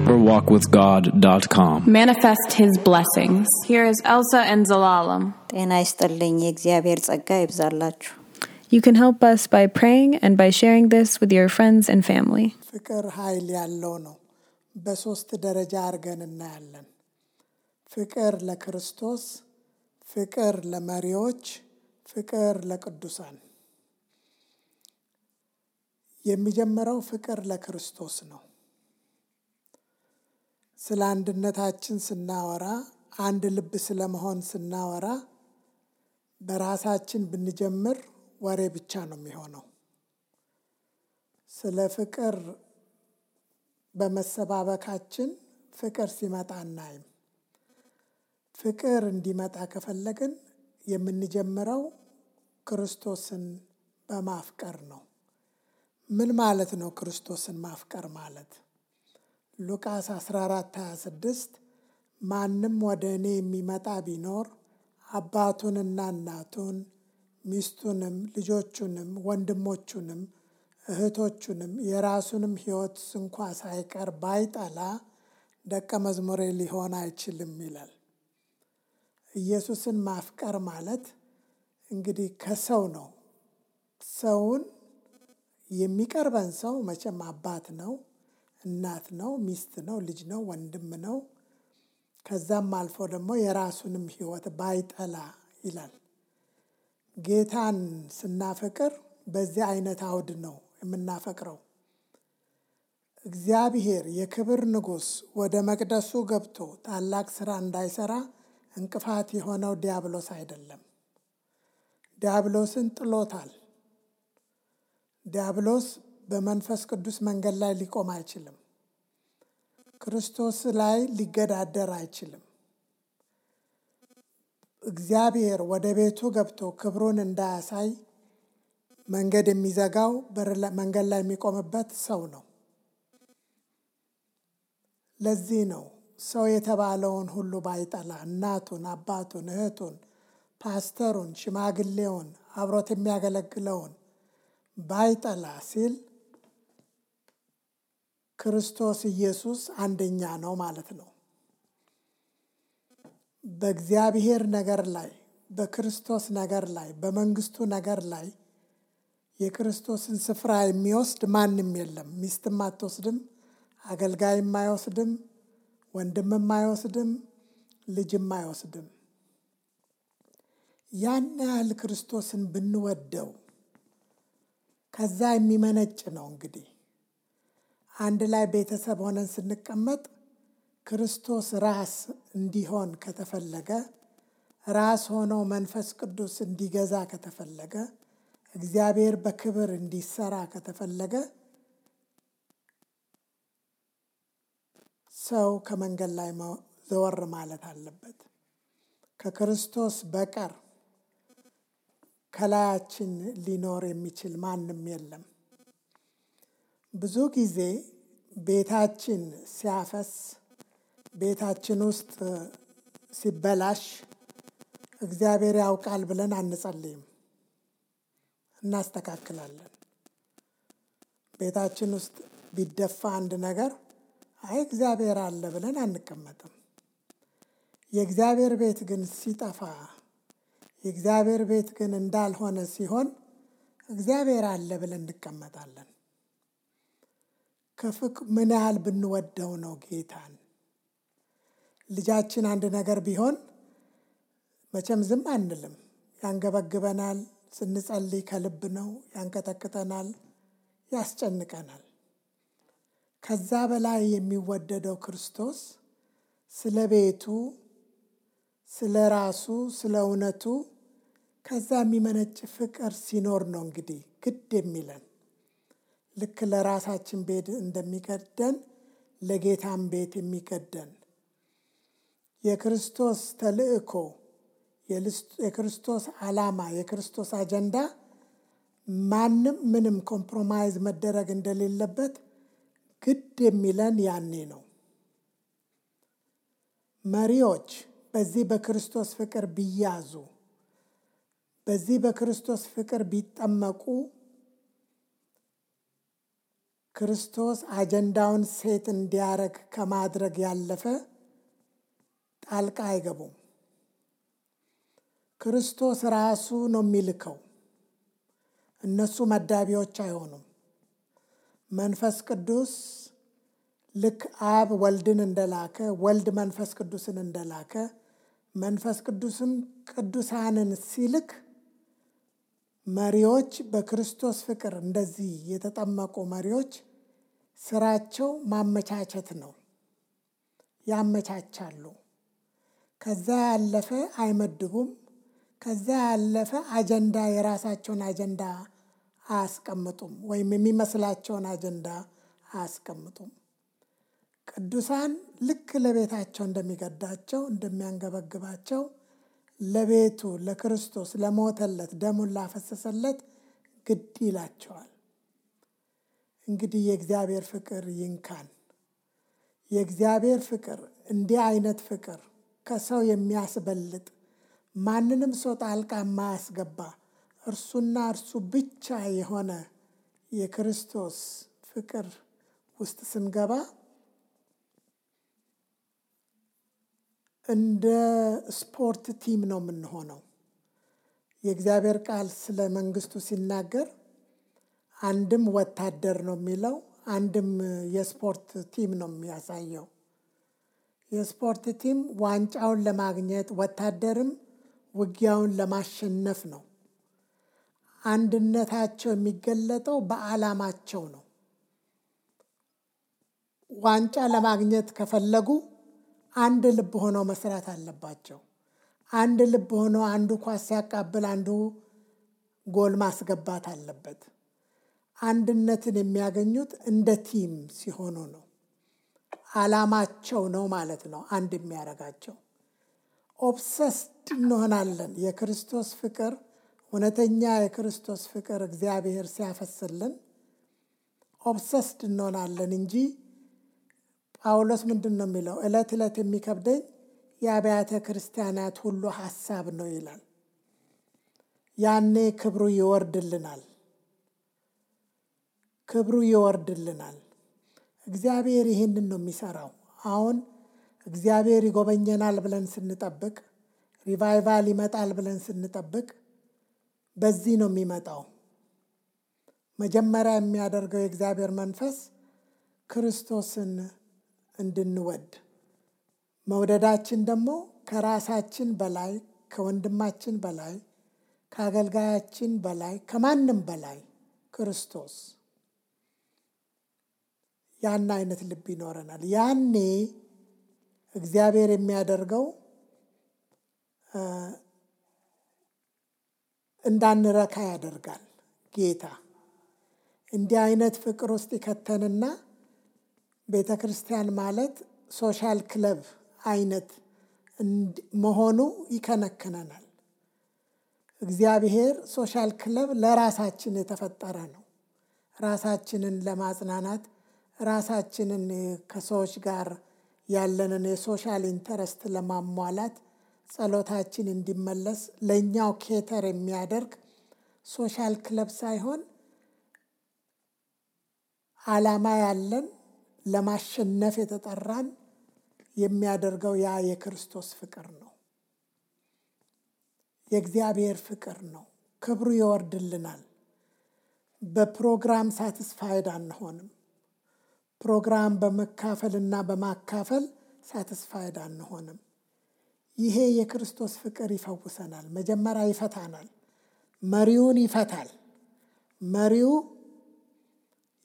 deeperwalkwithgod.com. Manifest His blessings. Here is Elsa and Zalalam. ጤና ይስጥልኝ የእግዚአብሔር ጸጋ ይብዛላችሁ። You can help us by praying and by sharing this with your friends and family. ፍቅር ኃይል ያለው ነው። በሶስት ደረጃ አድርገን እናያለን። ፍቅር ለክርስቶስ፣ ፍቅር ለመሪዎች፣ ፍቅር ለቅዱሳን። የሚጀምረው ፍቅር ለክርስቶስ ነው። ስለ አንድነታችን ስናወራ፣ አንድ ልብ ስለመሆን ስናወራ በራሳችን ብንጀምር ወሬ ብቻ ነው የሚሆነው። ስለ ፍቅር በመሰባበካችን ፍቅር ሲመጣ እናይም። ፍቅር እንዲመጣ ከፈለግን የምንጀምረው ክርስቶስን በማፍቀር ነው። ምን ማለት ነው ክርስቶስን ማፍቀር ማለት? ሉቃስ 14:26 ማንም ወደ እኔ የሚመጣ ቢኖር አባቱንና እናቱን ሚስቱንም ልጆቹንም ወንድሞቹንም እህቶቹንም የራሱንም ሕይወት እንኳ ሳይቀር ባይጠላ ደቀ መዝሙሬ ሊሆን አይችልም ይላል። ኢየሱስን ማፍቀር ማለት እንግዲህ ከሰው ነው። ሰውን የሚቀርበን ሰው መቼም አባት ነው፣ እናት ነው፣ ሚስት ነው፣ ልጅ ነው፣ ወንድም ነው። ከዛም አልፎ ደግሞ የራሱንም ሕይወት ባይጠላ ይላል። ጌታን ስናፈቅር በዚህ አይነት አውድ ነው የምናፈቅረው። እግዚአብሔር የክብር ንጉሥ ወደ መቅደሱ ገብቶ ታላቅ ስራ እንዳይሰራ እንቅፋት የሆነው ዲያብሎስ አይደለም። ዲያብሎስን ጥሎታል። ዲያብሎስ በመንፈስ ቅዱስ መንገድ ላይ ሊቆም አይችልም። ክርስቶስ ላይ ሊገዳደር አይችልም። እግዚአብሔር ወደ ቤቱ ገብቶ ክብሩን እንዳያሳይ መንገድ የሚዘጋው መንገድ ላይ የሚቆምበት ሰው ነው። ለዚህ ነው ሰው የተባለውን ሁሉ ባይጠላ እናቱን፣ አባቱን፣ እህቱን፣ ፓስተሩን፣ ሽማግሌውን፣ አብሮት የሚያገለግለውን ባይጠላ ሲል ክርስቶስ ኢየሱስ አንደኛ ነው ማለት ነው። በእግዚአብሔር ነገር ላይ፣ በክርስቶስ ነገር ላይ፣ በመንግስቱ ነገር ላይ የክርስቶስን ስፍራ የሚወስድ ማንም የለም። ሚስትም አትወስድም፣ አገልጋይም አይወስድም፣ ወንድምም አይወስድም፣ ልጅም አይወስድም። ያን ያህል ክርስቶስን ብንወደው ከዛ የሚመነጭ ነው። እንግዲህ አንድ ላይ ቤተሰብ ሆነን ስንቀመጥ ክርስቶስ ራስ እንዲሆን ከተፈለገ፣ ራስ ሆኖ መንፈስ ቅዱስ እንዲገዛ ከተፈለገ፣ እግዚአብሔር በክብር እንዲሰራ ከተፈለገ ሰው ከመንገድ ላይ ዘወር ማለት አለበት። ከክርስቶስ በቀር ከላያችን ሊኖር የሚችል ማንም የለም። ብዙ ጊዜ ቤታችን ሲያፈስ፣ ቤታችን ውስጥ ሲበላሽ እግዚአብሔር ያውቃል ብለን አንጸልይም፣ እናስተካክላለን። ቤታችን ውስጥ ቢደፋ አንድ ነገር አይ እግዚአብሔር አለ ብለን አንቀመጥም። የእግዚአብሔር ቤት ግን ሲጠፋ፣ የእግዚአብሔር ቤት ግን እንዳልሆነ ሲሆን እግዚአብሔር አለ ብለን እንቀመጣለን። ምን ያህል ብንወደው ነው ጌታን? ልጃችን አንድ ነገር ቢሆን መቼም ዝም አንልም፣ ያንገበግበናል። ስንጸልይ ከልብ ነው፣ ያንቀጠቅጠናል፣ ያስጨንቀናል። ከዛ በላይ የሚወደደው ክርስቶስ ስለ ቤቱ፣ ስለ ራሱ፣ ስለ እውነቱ ከዛ የሚመነጭ ፍቅር ሲኖር ነው እንግዲህ ግድ የሚለን። ልክ ለራሳችን ቤት እንደሚገደን ለጌታም ቤት የሚገደን የክርስቶስ ተልእኮ፣ የክርስቶስ ዓላማ፣ የክርስቶስ አጀንዳ ማንም ምንም ኮምፕሮማይዝ መደረግ እንደሌለበት ግድ የሚለን ያኔ ነው። መሪዎች በዚህ በክርስቶስ ፍቅር ቢያዙ፣ በዚህ በክርስቶስ ፍቅር ቢጠመቁ ክርስቶስ አጀንዳውን ሴት እንዲያረግ ከማድረግ ያለፈ ጣልቃ አይገቡም። ክርስቶስ ራሱ ነው የሚልከው። እነሱ መዳቢዎች አይሆኑም። መንፈስ ቅዱስ ልክ አብ ወልድን እንደላከ ወልድ መንፈስ ቅዱስን እንደላከ መንፈስ ቅዱስም ቅዱሳንን ሲልክ መሪዎች በክርስቶስ ፍቅር እንደዚህ የተጠመቁ መሪዎች ስራቸው ማመቻቸት ነው። ያመቻቻሉ። ከዛ ያለፈ አይመድቡም። ከዛ ያለፈ አጀንዳ የራሳቸውን አጀንዳ አያስቀምጡም ወይም የሚመስላቸውን አጀንዳ አያስቀምጡም። ቅዱሳን ልክ ለቤታቸው እንደሚገዳቸው እንደሚያንገበግባቸው ለቤቱ ለክርስቶስ ለሞተለት ደሙን ላፈሰሰለት ግድ ይላቸዋል። እንግዲህ የእግዚአብሔር ፍቅር ይንካን። የእግዚአብሔር ፍቅር እንዲህ አይነት ፍቅር ከሰው የሚያስበልጥ ማንንም ሰው ጣልቃ የማያስገባ እርሱና እርሱ ብቻ የሆነ የክርስቶስ ፍቅር ውስጥ ስንገባ እንደ ስፖርት ቲም ነው የምንሆነው። የእግዚአብሔር ቃል ስለ መንግስቱ ሲናገር አንድም ወታደር ነው የሚለው፣ አንድም የስፖርት ቲም ነው የሚያሳየው። የስፖርት ቲም ዋንጫውን ለማግኘት ወታደርም ውጊያውን ለማሸነፍ ነው። አንድነታቸው የሚገለጠው በዓላማቸው ነው። ዋንጫ ለማግኘት ከፈለጉ አንድ ልብ ሆነው መስራት አለባቸው። አንድ ልብ ሆነው አንዱ ኳስ ሲያቃብል አንዱ ጎል ማስገባት አለበት። አንድነትን የሚያገኙት እንደ ቲም ሲሆኑ ነው። ዓላማቸው ነው ማለት ነው አንድ የሚያደርጋቸው። ኦብሰስድ እንሆናለን። የክርስቶስ ፍቅር እውነተኛ የክርስቶስ ፍቅር እግዚአብሔር ሲያፈስልን ኦብሰስድ እንሆናለን እንጂ ጳውሎስ ምንድን ነው የሚለው? ዕለት ዕለት የሚከብደኝ የአብያተ ክርስቲያናት ሁሉ ሐሳብ ነው ይላል። ያኔ ክብሩ ይወርድልናል። ክብሩ ይወርድልናል። እግዚአብሔር ይህንን ነው የሚሰራው። አሁን እግዚአብሔር ይጎበኘናል ብለን ስንጠብቅ፣ ሪቫይቫል ይመጣል ብለን ስንጠብቅ በዚህ ነው የሚመጣው። መጀመሪያ የሚያደርገው የእግዚአብሔር መንፈስ ክርስቶስን እንድንወድ፣ መውደዳችን ደግሞ ከራሳችን በላይ ከወንድማችን በላይ ከአገልጋያችን በላይ ከማንም በላይ ክርስቶስ ያን አይነት ልብ ይኖረናል። ያኔ እግዚአብሔር የሚያደርገው እንዳንረካ ያደርጋል። ጌታ እንዲህ አይነት ፍቅር ውስጥ ይከተንና ቤተ ክርስቲያን ማለት ሶሻል ክለብ አይነት መሆኑ ይከነክነናል። እግዚአብሔር ሶሻል ክለብ ለራሳችን የተፈጠረ ነው። ራሳችንን ለማጽናናት፣ ራሳችንን ከሰዎች ጋር ያለንን የሶሻል ኢንተረስት ለማሟላት፣ ጸሎታችን እንዲመለስ ለእኛው ኬተር የሚያደርግ ሶሻል ክለብ ሳይሆን ዓላማ ያለን ለማሸነፍ የተጠራን የሚያደርገው ያ የክርስቶስ ፍቅር ነው። የእግዚአብሔር ፍቅር ነው። ክብሩ ይወርድልናል። በፕሮግራም ሳትስፋይድ አንሆንም። ፕሮግራም በመካፈልና በማካፈል ሳትስፋይድ አንሆንም። ይሄ የክርስቶስ ፍቅር ይፈውሰናል። መጀመሪያ ይፈታናል። መሪውን ይፈታል። መሪው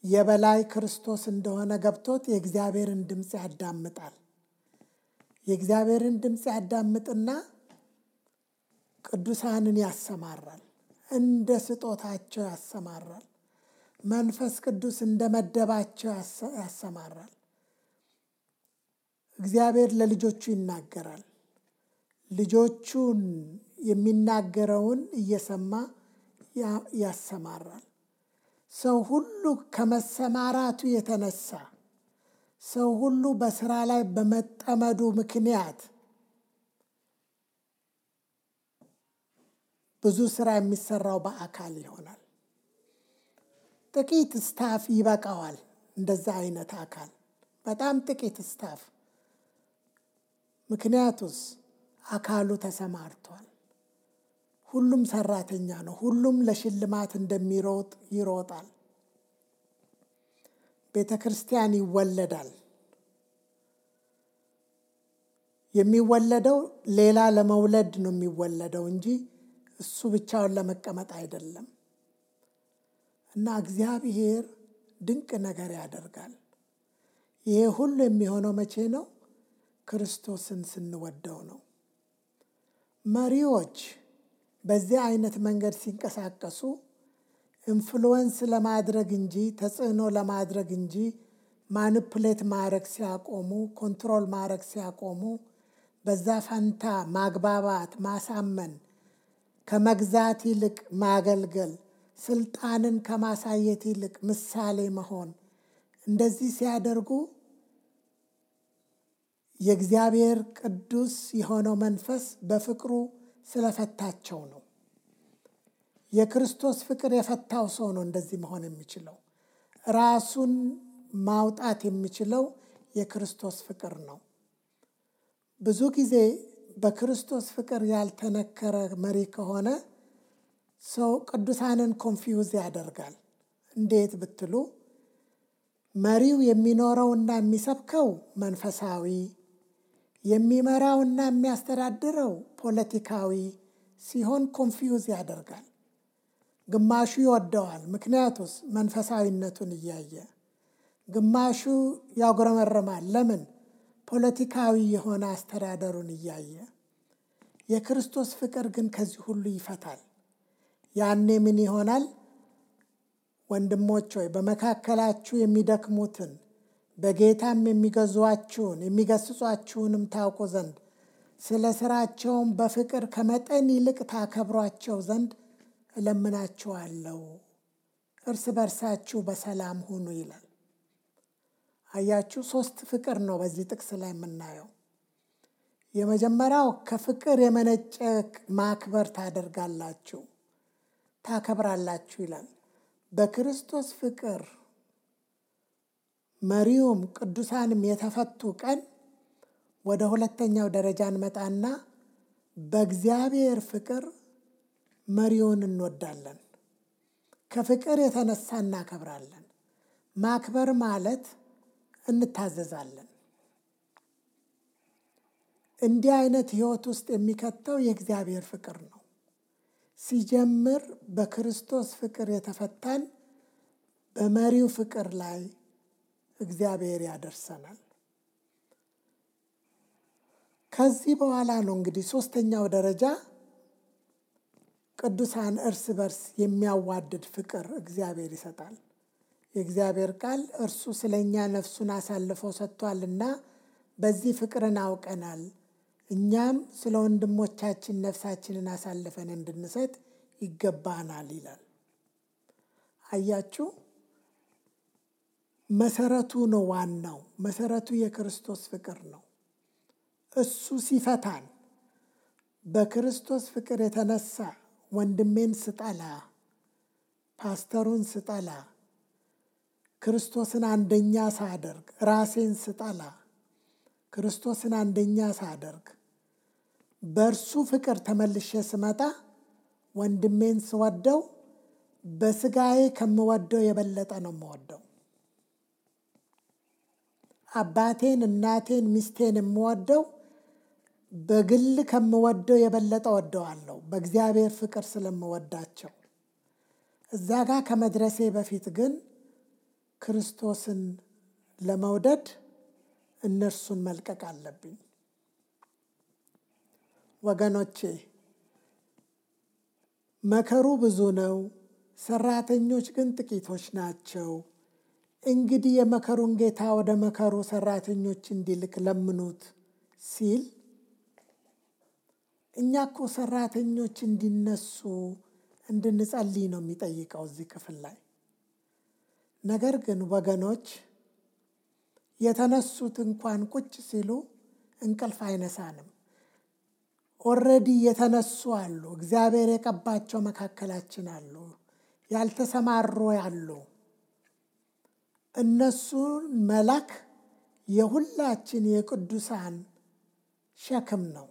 የበላይ ክርስቶስ እንደሆነ ገብቶት የእግዚአብሔርን ድምፅ ያዳምጣል። የእግዚአብሔርን ድምፅ ያዳምጥና ቅዱሳንን ያሰማራል። እንደ ስጦታቸው ያሰማራል። መንፈስ ቅዱስ እንደ መደባቸው ያሰማራል። እግዚአብሔር ለልጆቹ ይናገራል። ልጆቹን የሚናገረውን እየሰማ ያሰማራል። ሰው ሁሉ ከመሰማራቱ የተነሳ ሰው ሁሉ በስራ ላይ በመጠመዱ ምክንያት ብዙ ስራ የሚሰራው በአካል ይሆናል። ጥቂት ስታፍ ይበቃዋል እንደዛ አይነት አካል በጣም ጥቂት ስታፍ። ምክንያቱስ አካሉ ተሰማርቷል። ሁሉም ሰራተኛ ነው። ሁሉም ለሽልማት እንደሚሮጥ ይሮጣል። ቤተ ክርስቲያን ይወለዳል። የሚወለደው ሌላ ለመውለድ ነው የሚወለደው እንጂ እሱ ብቻውን ለመቀመጥ አይደለም። እና እግዚአብሔር ድንቅ ነገር ያደርጋል። ይሄ ሁሉ የሚሆነው መቼ ነው? ክርስቶስን ስንወደው ነው። መሪዎች በዚህ አይነት መንገድ ሲንቀሳቀሱ ኢንፍሉዌንስ ለማድረግ እንጂ ተጽዕኖ ለማድረግ እንጂ ማኒፑሌት ማድረግ ሲያቆሙ፣ ኮንትሮል ማድረግ ሲያቆሙ፣ በዛ ፈንታ ማግባባት፣ ማሳመን፣ ከመግዛት ይልቅ ማገልገል፣ ስልጣንን ከማሳየት ይልቅ ምሳሌ መሆን፣ እንደዚህ ሲያደርጉ የእግዚአብሔር ቅዱስ የሆነው መንፈስ በፍቅሩ ስለፈታቸው ነው። የክርስቶስ ፍቅር የፈታው ሰው ነው እንደዚህ መሆን የሚችለው። ራሱን ማውጣት የሚችለው የክርስቶስ ፍቅር ነው። ብዙ ጊዜ በክርስቶስ ፍቅር ያልተነከረ መሪ ከሆነ ሰው ቅዱሳንን ኮንፊውዝ ያደርጋል። እንዴት ብትሉ መሪው የሚኖረውና የሚሰብከው መንፈሳዊ፣ የሚመራውና የሚያስተዳድረው ፖለቲካዊ ሲሆን ኮንፊውዝ ያደርጋል። ግማሹ ይወደዋል፣ ምክንያቱስ መንፈሳዊነቱን እያየ፣ ግማሹ ያጉረመርማል። ለምን? ፖለቲካዊ የሆነ አስተዳደሩን እያየ። የክርስቶስ ፍቅር ግን ከዚህ ሁሉ ይፈታል። ያኔ ምን ይሆናል? ወንድሞች ሆይ በመካከላችሁ የሚደክሙትን በጌታም የሚገዟችሁን የሚገስጿችሁንም ታውቁ ዘንድ ስለ ስራቸውም በፍቅር ከመጠን ይልቅ ታከብሯቸው ዘንድ እለምናችኋለሁ። እርስ በርሳችሁ በሰላም ሁኑ ይላል። አያችሁ፣ 3 ፍቅር ነው በዚህ ጥቅስ ላይ የምናየው። የመጀመሪያው ከፍቅር የመነጨ ማክበር ታደርጋላችሁ፣ ታከብራላችሁ ይላል። በክርስቶስ ፍቅር መሪውም ቅዱሳንም የተፈቱ ቀን ወደ ሁለተኛው ደረጃ እንመጣና በእግዚአብሔር ፍቅር መሪውን እንወዳለን። ከፍቅር የተነሳ እናከብራለን። ማክበር ማለት እንታዘዛለን። እንዲህ አይነት ህይወት ውስጥ የሚከተው የእግዚአብሔር ፍቅር ነው። ሲጀምር በክርስቶስ ፍቅር የተፈታን በመሪው ፍቅር ላይ እግዚአብሔር ያደርሰናል። ከዚህ በኋላ ነው እንግዲህ 3ኛው ደረጃ ቅዱሳን እርስ በርስ የሚያዋድድ ፍቅር እግዚአብሔር ይሰጣል። የእግዚአብሔር ቃል እርሱ ስለኛ ነፍሱን አሳልፎ ሰጥቷልና በዚህ ፍቅርን አውቀናል፣ እኛም ስለ ወንድሞቻችን ነፍሳችንን አሳልፈን እንድንሰጥ ይገባናል ይላል። አያችሁ፣ መሰረቱ ነው። ዋናው መሰረቱ የክርስቶስ ፍቅር ነው። እሱ ሲፈታን በክርስቶስ ፍቅር የተነሳ ወንድሜን ስጠላ፣ ፓስተሩን ስጠላ፣ ክርስቶስን አንደኛ ሳደርግ፣ ራሴን ስጠላ፣ ክርስቶስን አንደኛ ሳደርግ፣ በእርሱ ፍቅር ተመልሼ ስመጣ ወንድሜን ስወደው በስጋዬ ከምወደው የበለጠ ነው የምወደው። አባቴን፣ እናቴን፣ ሚስቴን የምወደው በግል ከምወደው የበለጠ ወደዋለሁ፣ በእግዚአብሔር ፍቅር ስለምወዳቸው። እዛ ጋር ከመድረሴ በፊት ግን ክርስቶስን ለመውደድ እነርሱን መልቀቅ አለብኝ። ወገኖቼ፣ መከሩ ብዙ ነው፣ ሰራተኞች ግን ጥቂቶች ናቸው። እንግዲህ የመከሩን ጌታ ወደ መከሩ ሰራተኞች እንዲልክ ለምኑት ሲል እኛ እኮ ሰራተኞች እንዲነሱ እንድንጸልይ ነው የሚጠይቀው እዚህ ክፍል ላይ። ነገር ግን ወገኖች፣ የተነሱት እንኳን ቁጭ ሲሉ እንቅልፍ አይነሳንም። ኦልሬዲ የተነሱ አሉ። እግዚአብሔር የቀባቸው መካከላችን አሉ። ያልተሰማሩ አሉ። እነሱን መላክ የሁላችን የቅዱሳን ሸክም ነው።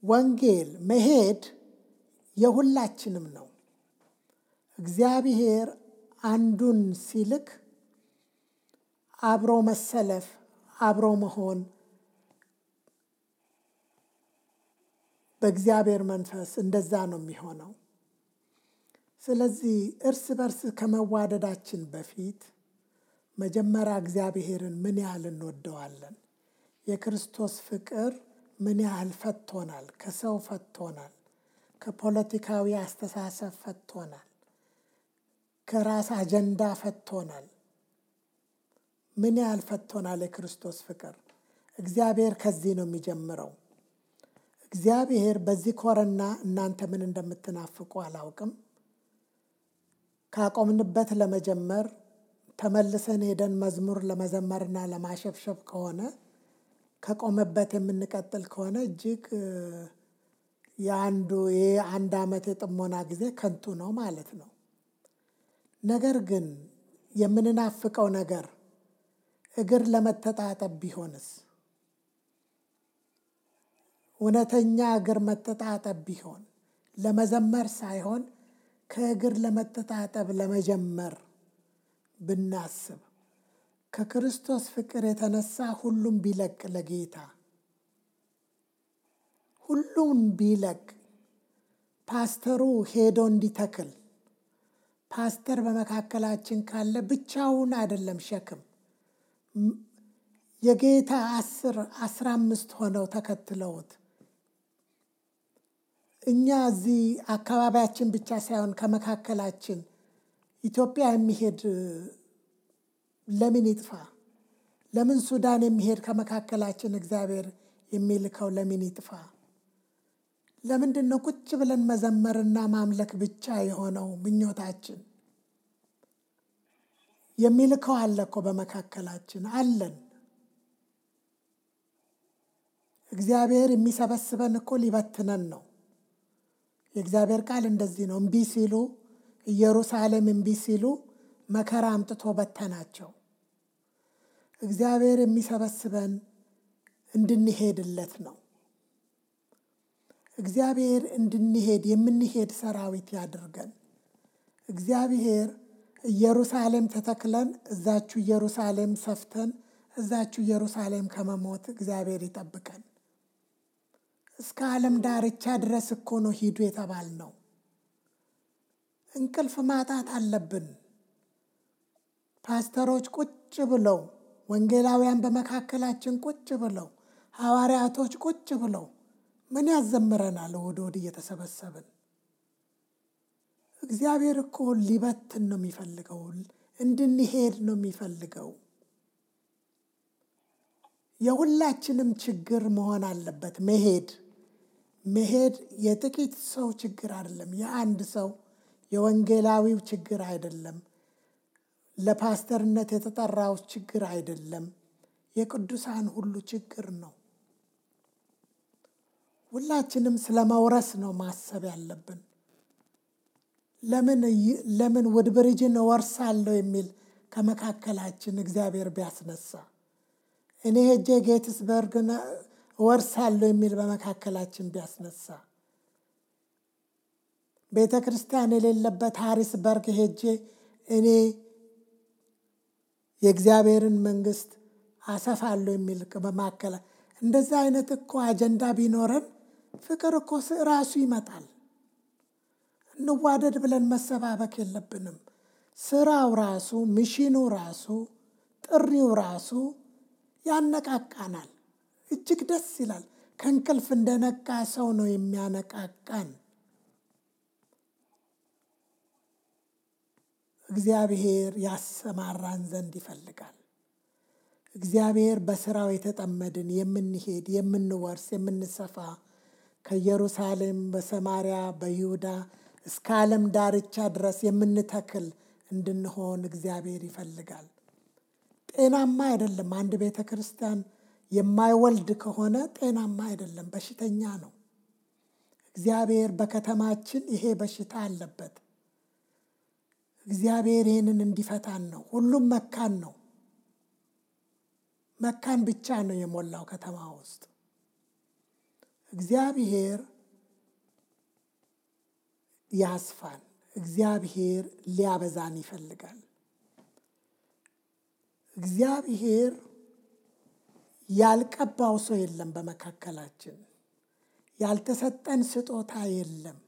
ወንጌል መሄድ የሁላችንም ነው። እግዚአብሔር አንዱን ሲልክ አብሮ መሰለፍ፣ አብሮ መሆን በእግዚአብሔር መንፈስ እንደዛ ነው የሚሆነው። ስለዚህ እርስ በርስ ከመዋደዳችን በፊት መጀመሪያ እግዚአብሔርን ምን ያህል እንወደዋለን? የክርስቶስ ፍቅር ምን ያህል ፈቶናል? ከሰው ፈቶናል፣ ከፖለቲካዊ አስተሳሰብ ፈቶናል፣ ከራስ አጀንዳ ፈቶናል። ምን ያህል ፈቶናል የክርስቶስ ፍቅር? እግዚአብሔር ከዚህ ነው የሚጀምረው። እግዚአብሔር በዚህ ኮረና እናንተ ምን እንደምትናፍቁ አላውቅም። ካቆምንበት ለመጀመር ተመልሰን ሄደን መዝሙር ለመዘመርና ለማሸብሸብ ከሆነ ከቆመበት የምንቀጥል ከሆነ እጅግ የአንድ ዓመት የጥሞና ጊዜ ከንቱ ነው ማለት ነው። ነገር ግን የምንናፍቀው ነገር እግር ለመተጣጠብ ቢሆንስ? እውነተኛ እግር መተጣጠብ ቢሆን ለመዘመር ሳይሆን ከእግር ለመተጣጠብ ለመጀመር ብናስብ ከክርስቶስ ፍቅር የተነሳ ሁሉም ቢለቅ ለጌታ ሁሉም ቢለቅ ፓስተሩ ሄዶ እንዲተክል ፓስተር በመካከላችን ካለ ብቻውን አይደለም ሸክም የጌታ 10-15 ሆነው ተከትለውት እኛ እዚህ አካባቢያችን ብቻ ሳይሆን ከመካከላችን ኢትዮጵያ የሚሄድ ለምን ይጥፋ? ለምን ሱዳን የሚሄድ ከመካከላችን እግዚአብሔር የሚልከው ለምን ይጥፋ? ለምንድን ነው ቁጭ ብለን መዘመርና ማምለክ ብቻ የሆነው ምኞታችን? የሚልከው አለ እኮ በመካከላችን አለን። እግዚአብሔር የሚሰበስበን እኮ ሊበትነን ነው። የእግዚአብሔር ቃል እንደዚህ ነው። እምቢ ሲሉ ኢየሩሳሌም እምቢ ሲሉ መከራ አምጥቶ በተናቸው። እግዚአብሔር የሚሰበስበን እንድንሄድለት ነው። እግዚአብሔር እንድንሄድ የምንሄድ ሰራዊት ያድርገን። እግዚአብሔር ኢየሩሳሌም ተተክለን እዛችሁ ኢየሩሳሌም ሰፍተን እዛችሁ ኢየሩሳሌም ከመሞት እግዚአብሔር ይጠብቀን። እስከ ዓለም ዳርቻ ድረስ እኮ ነው ሂዱ የተባልነው። እንቅልፍ ማጣት አለብን። ፓስተሮች ቁጭ ብለው፣ ወንጌላውያን በመካከላችን ቁጭ ብለው፣ ሐዋርያቶች ቁጭ ብለው ምን ያዘምረናል? እሑድ እሑድ እየተሰበሰብን እግዚአብሔር እኮ ሊበትን ነው የሚፈልገው፣ እንድንሄድ ነው የሚፈልገው። የሁላችንም ችግር መሆን አለበት መሄድ የጥቂት ሰው ችግር አይደለም። የአንድ ሰው የወንጌላዊው ችግር አይደለም። ለፓስተርነት የተጠራው ችግር አይደለም። የቅዱሳን ሁሉ ችግር ነው። ሁላችንም ስለመውረስ ነው ማሰብ ያለብን። ለምን ውድብርጅን እወርሳለሁ የሚል ከመካከላችን እግዚአብሔር ቢያስነሳ፣ እኔ ሄጄ ጌትስበርግን እወርሳለሁ የሚል በመካከላችን ቢያስነሳ፣ ቤተ ክርስቲያን የሌለበት ሃሪስበርግ ሄጄ እኔ የእግዚአብሔርን መንግስት አሰፋለሁ የሚል በማከለ እንደዛ አይነት እኮ አጀንዳ ቢኖረን ፍቅር እኮ ራሱ ይመጣል። እንዋደድ ብለን መሰባበክ የለብንም። ስራው ራሱ፣ ሚሽኑ ራሱ፣ ጥሪው ራሱ ያነቃቃናል። እጅግ ደስ ይላል። ከእንቅልፍ እንደነቃ ሰው ነው የሚያነቃቃን። እግዚአብሔር ያሰማራን ዘንድ ይፈልጋል። እግዚአብሔር በስራው የተጠመድን የምንሄድ፣ የምንወርስ፣ የምንሰፋ ከኢየሩሳሌም በሰማርያ በይሁዳ እስከ ዓለም ዳርቻ ድረስ የምንተክል እንድንሆን እግዚአብሔር ይፈልጋል። ጤናማ አይደለም። አንድ ቤተ ክርስቲያን የማይወልድ ከሆነ ጤናማ አይደለም፣ በሽተኛ ነው። እግዚአብሔር በከተማችን ይሄ በሽታ አለበት። እግዚአብሔር ይህንን እንዲፈታን ነው። ሁሉም መካን ነው። መካን ብቻ ነው የሞላው ከተማ ውስጥ። እግዚአብሔር ያስፋን። እግዚአብሔር ሊያበዛን ይፈልጋል። እግዚአብሔር ያልቀባው ሰው የለም በመካከላችን። ያልተሰጠን ስጦታ የለም።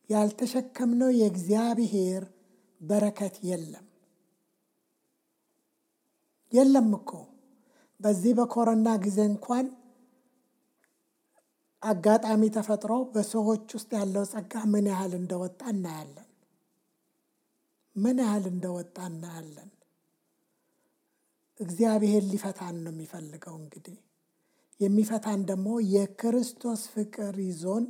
ያልተሸከምነው የእግዚአብሔር በረከት የለም እኮ። በዚህ በኮሮና ጊዜ እንኳን አጋጣሚ ተፈጥሮ በሰዎች ውስጥ ያለው ጸጋ ምን ያህል እንደወጣ እናያለን። እግዚአብሔር ሊፈታን ነው የሚፈልገው። እንግዲህ የሚፈታን ደግሞ የክርስቶስ ፍቅር ይዞን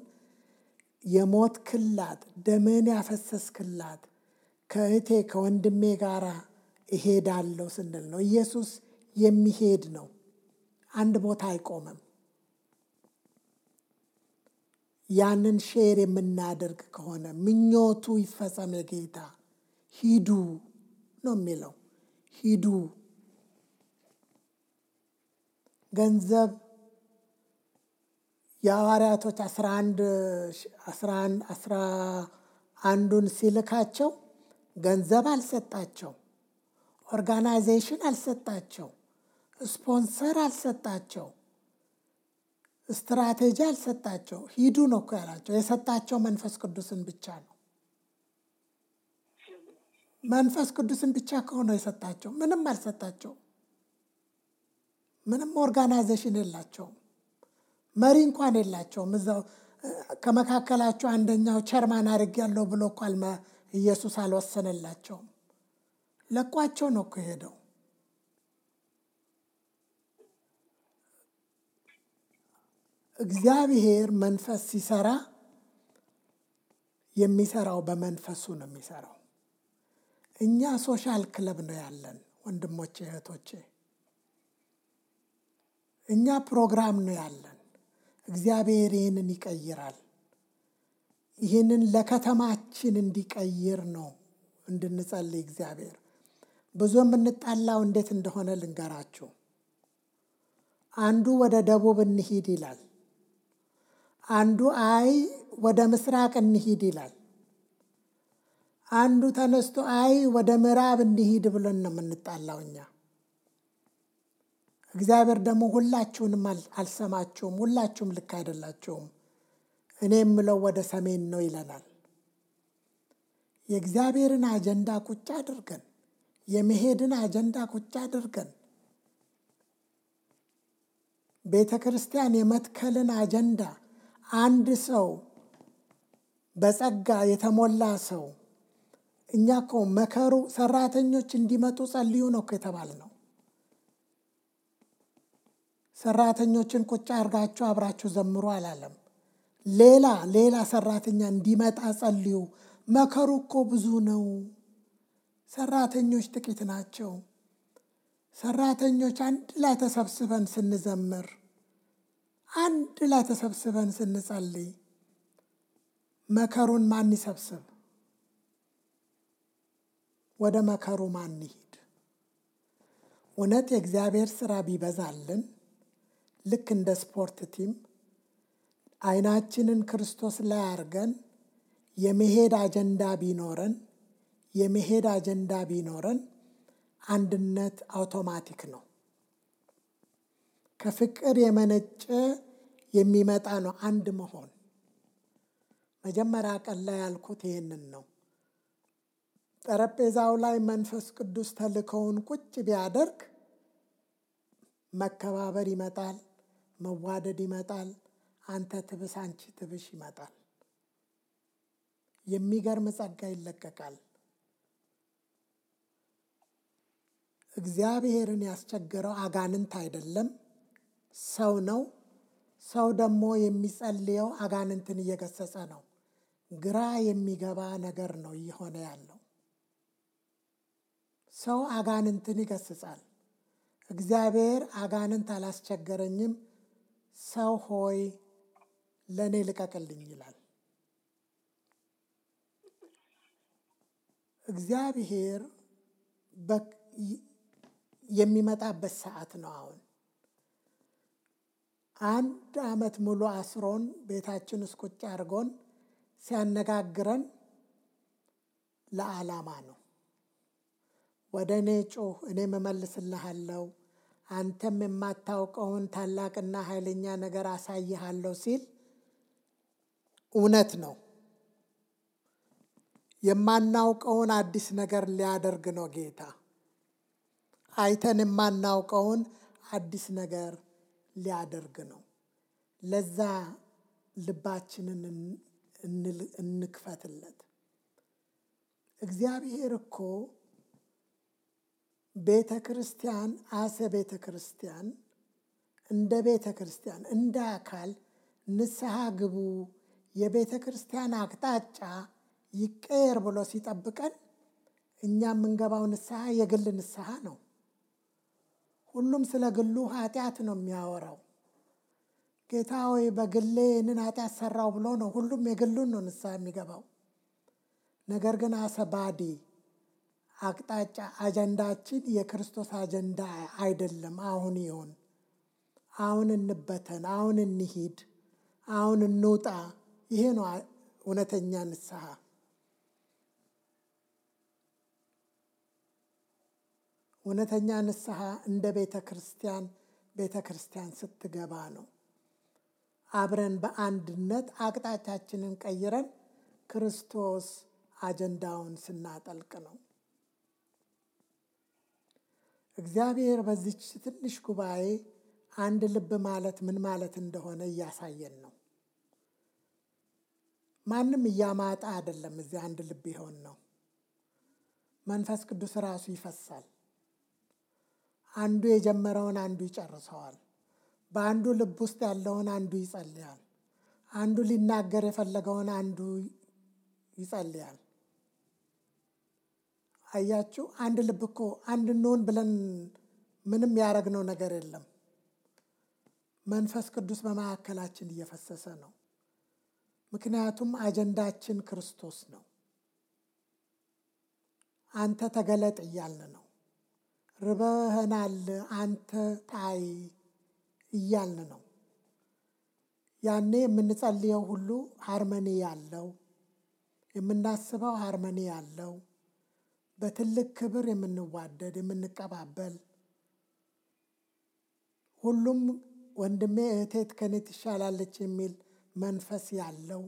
የሞት ክላት ደምን ያፈሰስክላት ከእቴ ከወንድሜ ጋር እሄዳለሁ ስንል ነው። ኢየሱስ የሚሄድ ነው። አንድ ቦታ አይቆምም። ያንን ሼር የምናደርግ ከሆነ ምኞቱ ይፈጸም የጌታ ሂዱ ነው የሚለው። ሂዱ። ገንዘብ የሐዋርያቶች 11ን ሲልካቸው ገንዘብ አልሰጣቸው፣ ኦርጋናይዜሽን አልሰጣቸው፣ ስፖንሰር አልሰጣቸው፣ ስትራቴጂ አልሰጣቸው። ሂዱ ነው እኮ ያላቸው። የሰጣቸው መንፈስ ቅዱስን ብቻ ነው። መንፈስ ቅዱስን ብቻ ከሆነ የሰጣቸው ምንም አልሰጣቸው። ምንም ኦርጋናይዜሽን የላቸውም። መሪ እንኳን የላቸውም። እዛው ከመካከላቸው አንደኛው ቸርማን አድርጌያለሁ ብሎ እኮ ኢየሱስ አልወሰነላቸውም። ለቋቸው ነው እኮ ሄደው። እግዚአብሔር መንፈስ ሲሰራ የሚሰራው በመንፈሱ ነው የሚሰራው። እኛ ሶሻል ክለብ ነው ያለን ወንድሞቼ እህቶቼ። እኛ ፕሮግራም ነው ያለን። እግዚአብሔር ይህንን ይቀይራል። ይህንን ለከተማችን እንዲቀይር ነው እንድንጸልይ እግዚአብሔር። ብዙ የምንጣላው እንዴት እንደሆነ ልንገራችሁ። አንዱ ወደ ደቡብ እንሂድ ይላል። አንዱ አይ ወደ ምስራቅ እንሂድ ይላል። አንዱ ተነስቶ አይ ወደ ምዕራብ እንሂድ ብለን ነው የምንጣላው እኛ። እግዚአብሔር ደግሞ ሁላችሁንም አልሰማችሁም፣ ሁላችሁም ልክ አይደላችሁም፣ እኔ የምለው ወደ ሰሜን ነው ይለናል። የእግዚአብሔርን አጀንዳ ቁጭ አድርገን፣ የመሄድን አጀንዳ ቁጭ አድርገን፣ ቤተ ክርስቲያን የመትከልን አጀንዳ አንድ ሰው በጸጋ የተሞላ ሰው እኛ እኮ መከሩ ሰራተኞች እንዲመጡ ጸልዩ ነው እኮ የተባልነው። ሰራተኞችን ቁጭ አድርጋችሁ አብራችሁ ዘምሩ አላለም። ሌላ ሰራተኛ እንዲመጣ ጸልዩ። መከሩ እኮ ብዙ ነው፣ ሰራተኞች ጥቂት ናቸው። ሰራተኞች አንድ ላይ ተሰብስበን ስንዘምር፣ አንድ ላይ ተሰብስበን ስንጸልይ መከሩን ማን ይሰብስብ? ወደ መከሩ ማን ይሂድ? እውነት የእግዚአብሔር ስራ ቢበዛልን ልክ እንደ ስፖርት ቲም አይናችንን ክርስቶስ ላይ አድርገን የመሄድ አጀንዳ ቢኖረን አንድነት አውቶማቲክ ነው። ከፍቅር የመነጨ የሚመጣ ነው አንድ መሆን። መጀመሪያ ቀን ላይ ያልኩት ይህንን ነው። ጠረጴዛው ላይ መንፈስ ቅዱስ ተልከውን ቁጭ ቢያደርግ መከባበር ይመጣል፣ መዋደድ ይመጣል፣ አንተ ትብስ አንቺ ትብሽ ይመጣል። የሚገርም ጸጋ ይለቀቃል። እግዚአብሔርን ያስቸገረው አጋንንት አይደለም፣ ሰው ነው። ሰው ደግሞ የሚጸልየው አጋንንትን እየገሰጸ ነው። ግራ የሚገባ ነገር ነው እየሆነ ያለው። ሰው አጋንንትን ይገስጻል። እግዚአብሔር አጋንንት አላስቸገረኝም፣ ሰው ሆይ ለእኔ ልቀቅልኝ ይላል። እግዚአብሔር የሚመጣበት ሰዓት ነው አሁን። 1 ዓመት ሙሉ አስሮን ቤታችን ውስጥ ቁጭ አድርጎን ሲያነጋግረን ለዓላማ ነው። ወደ እኔ ጩህ እኔም እመልስልሃለሁ፣ አንተም የማታውቀውን ታላቅና ኃይለኛ ነገር አሳይሃለሁ ሲል እውነት ነው። የማናውቀውን አዲስ ነገር ሊያደርግ ነው ጌታ። አይተን የማናውቀውን አዲስ ነገር ሊያደርግ ነው። ለዛ ልባችንን እንክፈትለት። እግዚአብሔር እኮ ቤተ ክርስቲያን ቤተ ክርስቲያን እንደ ቤተ ክርስቲያን እንደ አካል ንስሐ ግቡ፣ የቤተ ክርስቲያን አቅጣጫ ይቀየር ብሎ ሲጠብቀን እኛ የምንገባው ንስሐ የግል ንስሐ ነው። ሁሉም ስለ ግሉ ኃጢአት ነው የሚያወራው። ጌታ ሆይ በግሌ ይህንን ኃጢአት ሰራው ብሎ ነው ሁሉም የግሉን ነው ንስሐ የሚገባው። ነገር ግን አሰባዲ አቅጣጫ አጀንዳችን የክርስቶስ አጀንዳ አይደለም። አሁን ይሁን፣ አሁን እንበተን፣ አሁን እንሂድ፣ አሁን እንውጣ። ይሄ ነው እውነተኛ ንስሐ። እውነተኛ ንስሐ እንደ ቤተ ክርስቲያን ስትገባ ነው። አብረን በአንድነት አቅጣጫችንን ቀይረን ክርስቶስ አጀንዳውን ስናጠልቅ ነው። እግዚአብሔር በዚች ትንሽ ጉባኤ አንድ ልብ ማለት ምን ማለት እንደሆነ እያሳየን ነው። ማንም እያማጣ አይደለም እዚህ አንድ ልብ ይሆን ነው። መንፈስ ቅዱስ ራሱ ይፈሳል። አንዱ የጀመረውን አንዱ ይጨርሰዋል። በአንዱ ልብ ውስጥ ያለውን አንዱ ይጸልያል። አንዱ ሊናገር የፈለገውን አንዱ ይጸልያል። አያችሁ፣ አንድ ልብ እኮ አንድ እንሆን ብለን ምንም ያደረግነው ነገር የለም። መንፈስ ቅዱስ በመካከላችን እየፈሰሰ ነው። ምክንያቱም አጀንዳችን ክርስቶስ ነው። አንተ ተገለጥ እያልን ነው። ርበህናል አንተ ታይ እያልን ነው። ያኔ የምንጸልየው ሁሉ ሃርመኒ ያለው፣ የምናስበው ሃርመኒ ያለው፣ በትልቅ ክብር የምንዋደድ የምንቀባበል፣ ሁሉም ወንድሜ እህቴት ከኔ ትሻላለች የሚል መንፈስ ያለው።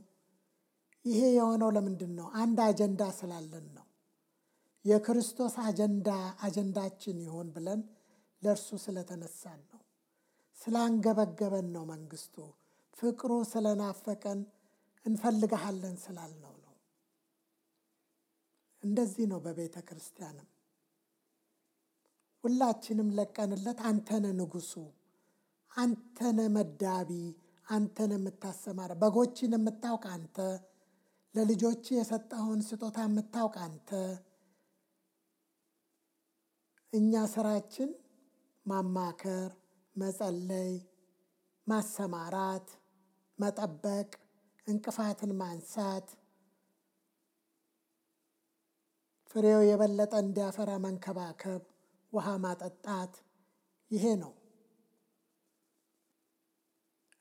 ይሄ የሆነው ለምንድን ነው? አንድ አጀንዳ ስላለን ነው። የክርስቶስ አጀንዳችን ይሆን ብለን ለእርሱ ስለተነሳን ነው። ስላንገበገበን ነው። መንግስቱ ፍቅሩ ስለናፈቀን እንፈልግሃለን ስላልነው ነው። እንደዚህ ነው በቤተ ክርስቲያንም ሁላችንም ለቀንለት አንተነ ንጉሱ፣ አንተነ መዳቢ፣ አንተነ የምታሰማራ፣ በጎችን የምታውቅ አንተ፣ ለልጆች የሰጠኸውን ስጦታ የምታውቅ አንተ። እኛ ስራችን ማማከር፣ መጸለይ፣ ማሰማራት፣ መጠበቅ፣ እንቅፋትን ማንሳት፣ ፍሬው የበለጠ እንዲያፈራ መንከባከብ፣ ውሃ ማጠጣት፣ ይሄ ነው።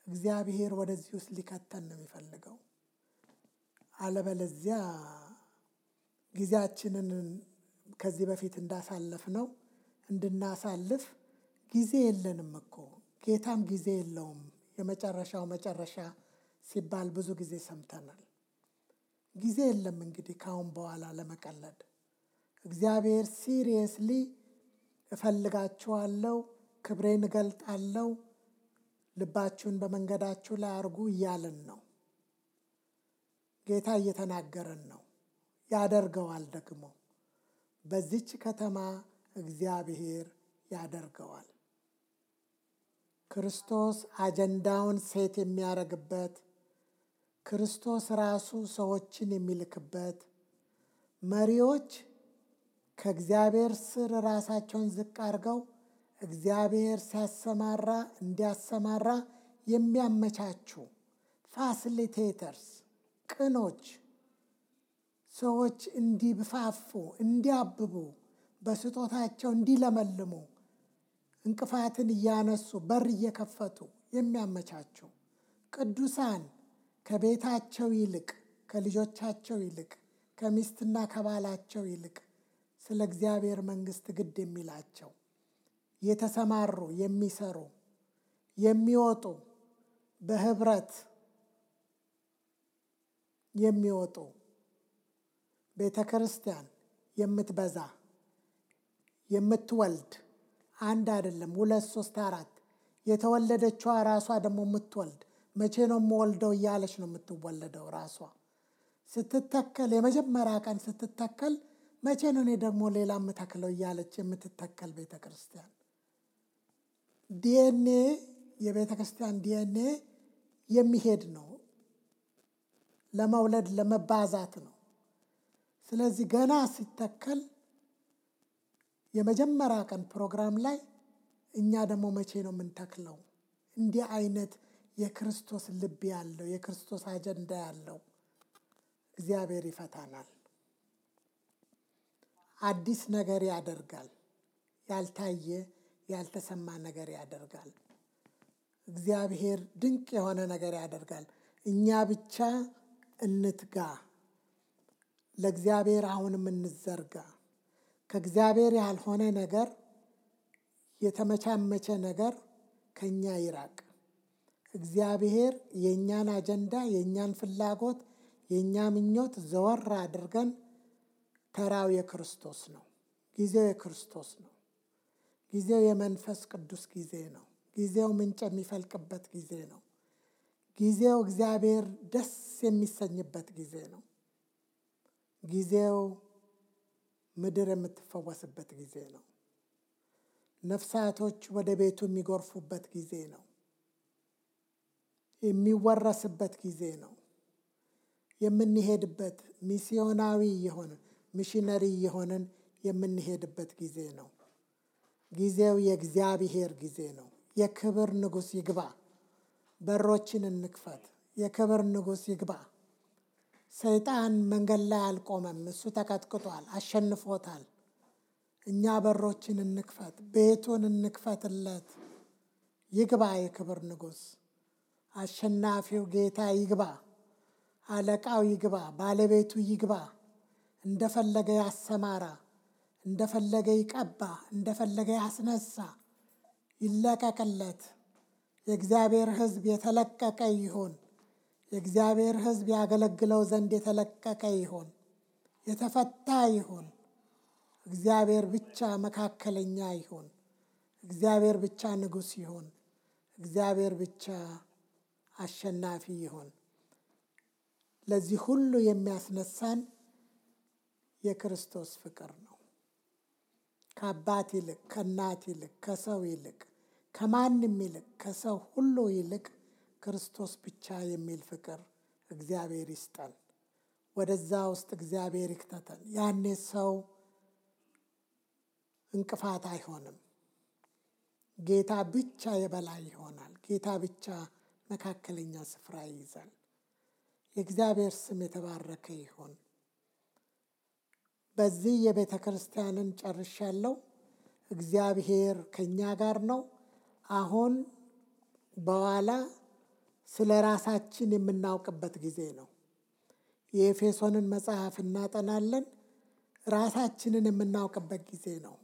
እግዚአብሔር ወደዚህ ውስጥ ሊከተን ነው የሚፈልገው። አለበለዚያ ጊዜያችንን ከዚህ በፊት እንዳሳለፍ ነው እንድናሳልፍ ጊዜ የለንም እኮ። ጌታም ጊዜ የለውም። የመጨረሻው መጨረሻ ሲባል ብዙ ጊዜ ሰምተናል። ጊዜ የለም እንግዲህ ካሁን በኋላ ለመቀለድ። እግዚአብሔር ሲሪየስሊ እፈልጋችኋለሁ፣ ክብሬን እገልጣለሁ፣ ልባችሁን በመንገዳችሁ ላይ አርጉ እያለን ነው። ጌታ እየተናገረን ነው። ያደርገዋል ደግሞ። በዚች ከተማ እግዚአብሔር ያደርገዋል። ክርስቶስ አጀንዳውን ሴት የሚያደርግበት፣ ክርስቶስ ራሱ ሰዎችን የሚልክበት፣ መሪዎች ከእግዚአብሔር ስር ራሳቸውን ዝቅ አድርገው እግዚአብሔር ሲያሰማራ እንዲያሰማራ የሚያመቻቹ ፋሲሊቴተርስ፣ ቅኖች ሰዎች እንዲብፋፉ፣ እንዲያብቡ፣ በስጦታቸው እንዲለመልሙ እንቅፋትን እያነሱ በር እየከፈቱ የሚያመቻቹ ቅዱሳን ከቤታቸው ይልቅ ከልጆቻቸው ይልቅ ከሚስትና ከባላቸው ይልቅ ስለ እግዚአብሔር መንግሥት ግድ የሚላቸው የተሰማሩ የሚሰሩ የሚወጡ በህብረት የሚወጡ ቤተ ክርስቲያን የምትበዛ የምትወልድ አንድ አይደለም 2 3 4 የተወለደችዋ ራሷ ደግሞ የምትወልድ መቼ ነው የምወልደው እያለች ነው የምትወለደው። ራሷ ስትተከል የመጀመሪያ ቀን ስትተከል መቼ ነው እኔ ደግሞ ሌላ የምተክለው እያለች የምትተከል ቤተ ክርስቲያን። ዲኤንኤ የቤተ ክርስቲያን ዲኤንኤ የሚሄድ ነው፣ ለመውለድ ለመባዛት ነው። ስለዚህ ገና ሲተከል የመጀመሪያ ቀን ፕሮግራም ላይ እኛ ደግሞ መቼ ነው የምንተክለው? እንዲህ አይነት የክርስቶስ ልብ ያለው የክርስቶስ አጀንዳ ያለው እግዚአብሔር ይፈታናል። አዲስ ነገር ያደርጋል። ያልታየ ያልተሰማ ነገር ያደርጋል። እግዚአብሔር ድንቅ የሆነ ነገር ያደርጋል። እኛ ብቻ እንትጋ፣ ለእግዚአብሔር አሁንም እንዘርጋ። ከእግዚአብሔር ያልሆነ ነገር የተመቻመቸ ነገር ከኛ ይራቅ። እግዚአብሔር የኛን አጀንዳ የኛን ፍላጎት የኛ ምኞት ዘወር አድርገን ተራው የክርስቶስ ነው። ጊዜው የክርስቶስ ነው። ጊዜው የመንፈስ ቅዱስ ጊዜ ነው። ጊዜው ምንጭ የሚፈልቅበት ጊዜ ነው። ጊዜው እግዚአብሔር ደስ የሚሰኝበት ጊዜ ነው። ጊዜው ምድር የምትፈወስበት ጊዜ ነው። ነፍሳቶች ወደ ቤቱ የሚጎርፉበት ጊዜ ነው። የሚወረስበት ጊዜ ነው። የምንሄድበት ሚስዮናዊ የሆንን ሚሽነሪ የሆንን የምንሄድበት ጊዜ ነው። ጊዜው የእግዚአብሔር ጊዜ ነው። የክብር ንጉሥ ይግባ። በሮችን እንክፈት። የክብር ንጉሥ ይግባ። ሰይጣን መንገድ ላይ አልቆመም። እሱ ተቀጥቅጧል፣ አሸንፎታል። እኛ በሮችን እንክፈት፣ ቤቱን እንክፈትለት። ይግባ የክብር ንጉሥ። አሸናፊው ጌታ ይግባ። አለቃው ይግባ። ባለቤቱ ይግባ። እንደፈለገ ያሰማራ፣ እንደፈለገ ይቀባ፣ እንደፈለገ ያስነሳ። ይለቀቅለት። የእግዚአብሔር ሕዝብ የተለቀቀ ይሁን። የእግዚአብሔር ሕዝብ ያገለግለው ዘንድ የተለቀቀ ይሁን፣ የተፈታ ይሁን። እግዚአብሔር ብቻ መካከለኛ ይሁን። እግዚአብሔር ብቻ ንጉሥ ይሁን። እግዚአብሔር ብቻ አሸናፊ ይሁን። ለዚህ ሁሉ የሚያስነሳን የክርስቶስ ፍቅር ነው። ከአባት ይልቅ፣ ከእናት ይልቅ፣ ከሰው ይልቅ፣ ከማንም ይልቅ፣ ከሰው ሁሉ ይልቅ ክርስቶስ ብቻ የሚል ፍቅር እግዚአብሔር ይስጠን። ወደዛ ውስጥ እግዚአብሔር ይክተተን። ያኔ ሰው እንቅፋት አይሆንም። ጌታ ብቻ የበላይ ይሆናል። ጌታ ብቻ መካከለኛ ስፍራ ይይዛል። የእግዚአብሔር ስም የተባረከ ይሁን። በዚህ የቤተ ክርስቲያንን ጨርሻለሁ። እግዚአብሔር ከኛ ጋር ነው። አሁን በኋላ ስለ ራሳችን የምናውቅበት ጊዜ ነው። የኤፌሶንን መጽሐፍ እናጠናለን። ራሳችንን የምናውቅበት ጊዜ ነው።